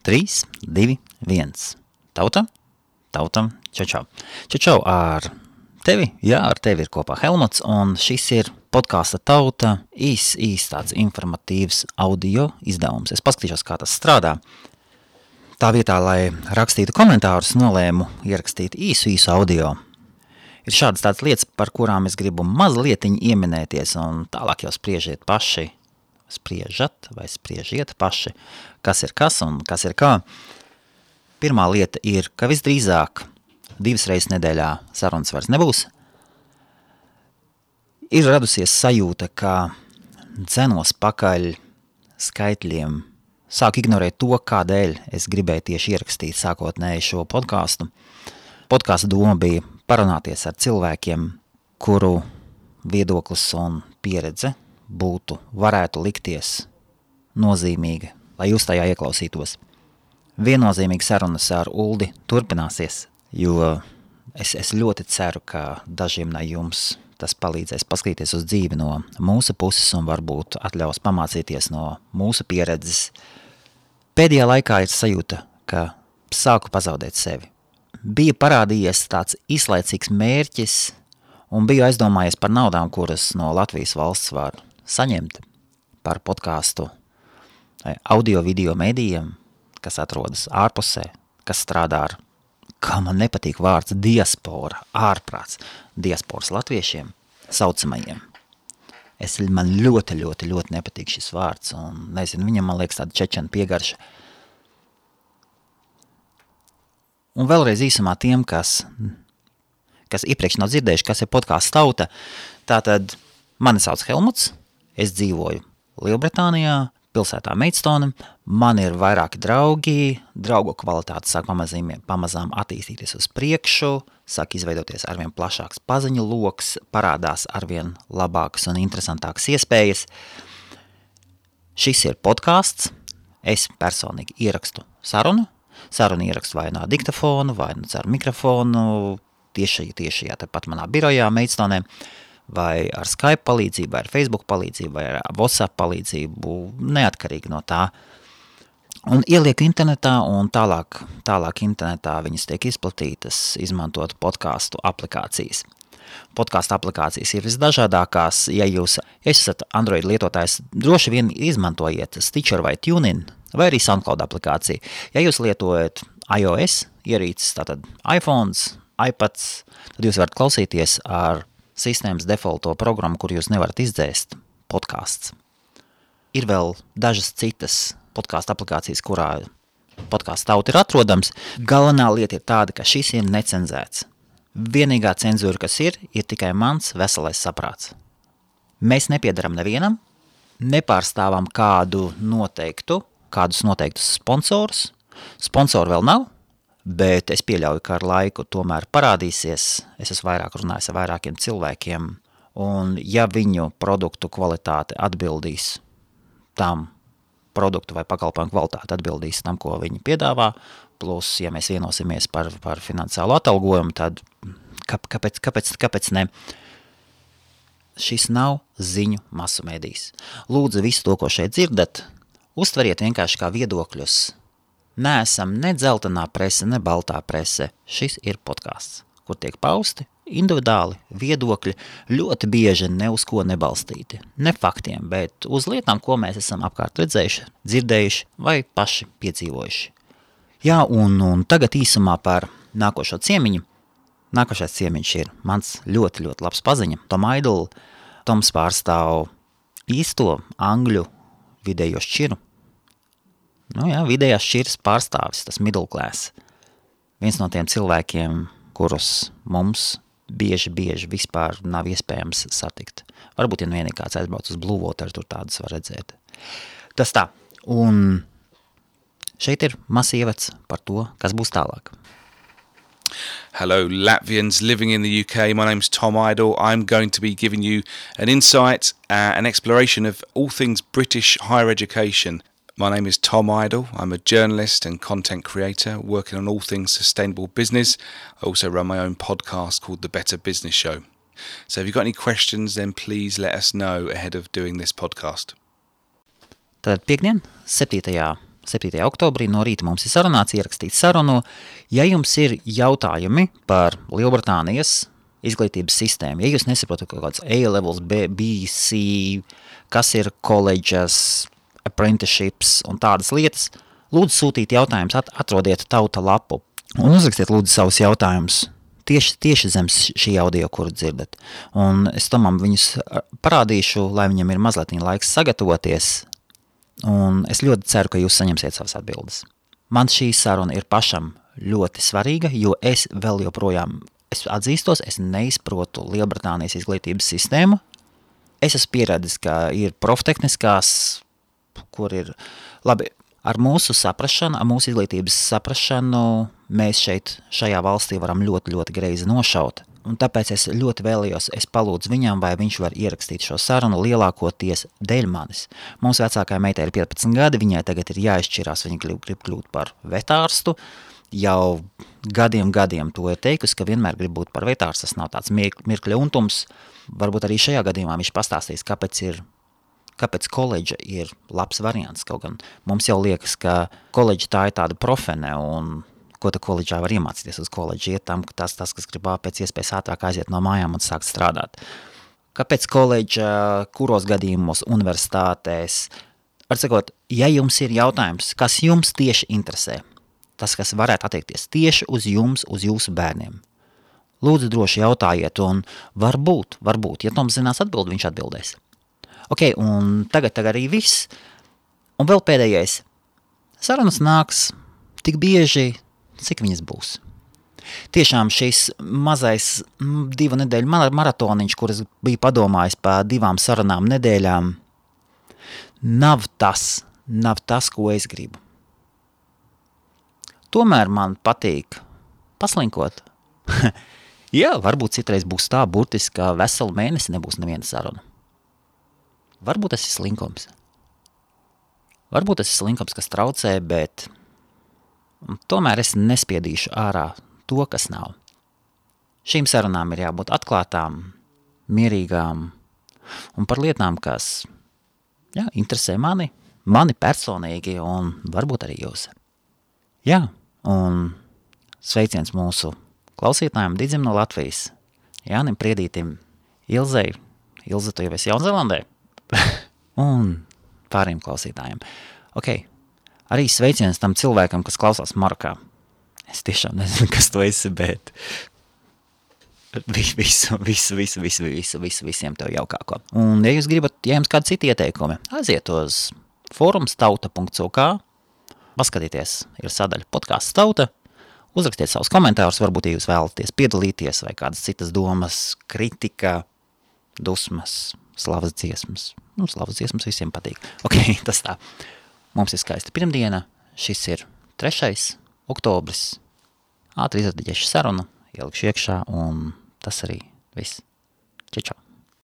3, 2, 1. Tauta, čau. Čau ar tevi, jā, ar tevi ir kopā Helmuts, un šis ir podkāsta Tauta, īs tāds informatīvs audio izdevums. Es paskatīšos, kā tas strādā. Tā vietā, lai rakstītu komentārus, nolēmu ierakstīt īsu audio. Ir šādas tādas lietas, par kurām es gribu mazlietiņi ieminēties, un tālāk jau spriežiet paši, spriežiet paši, kas ir kas un kas ir kā. Pirmā lieta ir, ka visdrīzāk 2 reizes nedēļā sarunas vairs nebūs. Ir radusies sajūta, ka dzenos pakaļ skaitļiem, sāku ignorēt to, kādēļ es gribēju tieši ierakstīt sākotnēji šo podkāstu. Podkāsta doma bija parunāties ar cilvēkiem, kuru viedoklis un pieredze varētu likties nozīmīga, lai jūs tajā ieklausītos. Viennozīmīgi sarunas ar Uldi turpināsies, jo es ļoti ceru, ka dažiem no jums tas palīdzēs paskatīties uz dzīvi no mūsu puses un varbūt atļaus pamācīties no mūsu pieredzes. Pēdējā laikā ir sajūta, ka sāku pazaudēt sevi. Bija parādījies tāds īslaicīgs mērķis un biju aizdomājies par naudām, kuras no Latvijas valsts var saņemt par podkāstu audio video medijiem, kas atrodas ārpusē, kas strādā ar, kā man nepatīk vārds, diaspora, ārprāts, diasporas latviešiem, saucamajiem. Man ļoti nepatīk šis vārds, un nezinu, viņam, man liekas, tāda čečena piegarša. Un vēlreiz īsumā tiem, kas iepriekš nav dzirdējuši, kas ir podkāsts Tauta, tātad mani sauc Helmuts, es dzīvoju Lielbritānijā, pilsētā Maidstone, man ir vairāki draugi, draugu kvalitāte sāk pamazām attīstīties uz priekšu, sāk izveidoties arvien plašāks paziņu loks, parādās arvien labākas un interesantākas iespējas. Šis ir podkāsts, es personīgi ierakstu sarunu ierakstu vai no diktafonu, vai no caur mikrofonu, tieši tepat manā birojā Maidstone, vai ar Skype palīdzību, vai ar Facebook palīdzību, vai ar WhatsApp palīdzību, neatkarīgi no tā. Un ielieku internetā, un tālāk internetā viņas tiek izplatītas, izmantot podkāstu aplikācijas. Podkāstu aplikācijas ir visdažādākās, ja jūs esat Android lietotājs, droši vien izmantojiet Stitcher vai TuneIn, vai arī SoundCloud aplikāciju. Ja jūs lietojat iOS ierīces, tātad iPhones, iPads, tad jūs varat klausīties ar sistēmas defaulto programmu, kur jūs nevarat izdzēst podkāsts. Ir vēl dažas citas podkāstu aplikācijas, kurā podkāsts Tauta ir atrodams. Galvenā lieta ir tāda, ka šis ir necenzēts. Vienīgā cenzūra, kas ir tikai mans veselais saprāts. Mēs nepiedaram nevienam, nepārstāvam kādus noteiktus sponsorus. Sponsoru vēl nav, bet es pieļauju, ka ar laiku tomēr parādīsies. Es esmu vairāk runājis ar vairākiem cilvēkiem, un ja viņu produktu kvalitāte atbildīs tam, produktu vai pakalpojumu kvalitāte atbildīs tam, ko viņi piedāvā, plus, ja mēs vienosimies par finansiālu atalgojumu, tad kāpēc ne? Šis nav ziņu masu medijs. Lūdzu, visu to, ko šeit dzirdat, uztveriet vienkārši kā viedokļus. Neesam ne dzeltenā prese, ne baltā prese. Šis ir podkāsts, kur tiek pausti individuāli viedokļi, ļoti bieži ne uz ko nebalstīti. Ne faktiem, bet uz lietām, ko mēs esam apkārt redzējuši, dzirdējuši vai paši piedzīvojuši. Jā, un tagad īsumā par nākošo ciemiņu. Nākošais ciemiņš ir mans ļoti labs paziņa, Tom Idle. Toms pārstāv īsto angļu vidējo šķiru. Vidējās šķiras pārstāvis, tas middle class. Viens no tiem cilvēkiem, kurus mums bieži vispār nav iespējams satikt. Varbūt, ja vienīgi kāds aizbrauc uz Blue Water, tur tādas var redzēt. Tas tā. Un šeit ir mazs ievads par to, kas būs tālāk. Hello, Latvians living in the UK. My name's Tom Idle. I'm going to be giving you an insight, an exploration of all things British higher education. My name is Tom Idle. I'm a journalist and content creator working on all things sustainable business. I also run my own podcast called The Better Business Show. So if you've got any questions, then please let us know ahead of doing this podcast. Tad piekdien, 7. 7. oktobrī no rīta mums ir sarunāts, ierakstīts sarunu. Ja jums ir jautājumi par Lielbritānijas izglītības sistēmu, ja jūs nesaprotat kaut kāds A-levels, BC, kas ir colleges, apprenticeships un tādas lietas, lūdzu sūtīt jautājumus, atrodiet tauta lapu un uzrakstiet lūdzu savus jautājumus. Tieši zem šī audio, kuru dzirdat. Un es Tomam viņus parādīšu, lai viņam ir mazliet laiks sagatavoties. Un es ļoti ceru, ka jūs saņemsiet savas atbildes. Man šī saruna ir pašam ļoti svarīga, jo es vēl joprojām, es atzīstos, es neizprotu Lielbritānijas izglītības sistēmu. Es esmu pieredzis, ka ir proftehniskās, kur ir, labi, ar mūsu saprašanu, ar mūsu izglītības saprašanu, mēs šajā valstī varam ļoti, ļoti greizi nošaut. Un tāpēc es ļoti vēlējos, es palūdzu viņam, vai viņš var ierakstīt šo sarunu lielākoties dēļ manis. Mums vecākā meitē ir 15 gadi, viņai tagad ir jāizšķirās, viņa grib kļūt par vetārstu. Jau gadiem to ir teikusi, ka vienmēr grib būt par vetārstu, tas nav tāds mirkļa untums. Varbūt arī šajā gadījumā viņš pastāstīs, kāpēc koledža ir labs variants. Kaut gan mums jau liekas, ka koledža tā ir tāda profene un ko tu koledžā var iemācīties uz koledžu, iet tam, ka tas, kas grib pēc iespējas ātrāk aiziet no mājām un sākt strādāt. Kāpēc koledža, kuros gadījumos, universitātēs? Var sakot, ja jums ir jautājums, kas jums tieši interesē, tas, kas varētu attiekties tieši uz jums, uz jūsu bērniem, lūdzu droši jautājiet, un varbūt, ja Toms zinās atbildi, viņš atbildēs. Ok, un tagad arī viss. Un vēl pēdējais. Sarunas nāks tik bieži, cik viņas būs. Tiešām šis mazais 2 nedēļu maratoniņš, kuras bija padomājis par 2 sarunām nedēļām, nav tas, ko es gribu. Tomēr man patīk paslinkot. Jā, varbūt citreiz būs tā burtiski, ka veselu mēnesi nebūs neviena saruna. Varbūt tas ir slinkums. Varbūt tas ir slinkums, kas traucē, bet tomēr es nespiedīšu ārā to, kas nav. Šīm sarunām ir jābūt atklātām, mierīgām un par lietām, kas interesē mani personīgi un varbūt arī jūs. Jā, un sveiciens mūsu klausītājiem Didzim no Latvijas, Jānim Priedītim, Ilzei, Ilze, tu jau esi Jaunzēlandē, un pāriem klausītājiem. Ok. Arī sveiciens tam cilvēkam, kas klausās Marokā. Es tiešām nezinu, kas tu esi, bet visiem tev jaukāko. Un ja jūs gribat, ja jums kādi citi ieteikumi, aiziet uz forumstauta.uk, paskatieties, ir sadaļa podcasts Tauta, uzrakstiet savus komentārus, varbūt, ja jūs vēlaties piedalīties vai kādas citas domas, kritika, dusmas, slavas dziesmas. Slavas dziesmas visiem patīk. Ok, tas tā. Mums ir skaista pirmdiena, šis ir 3. oktobris, ātri izradiģēšu sarunu, ielikšu iekšā, un tas arī viss. Čau!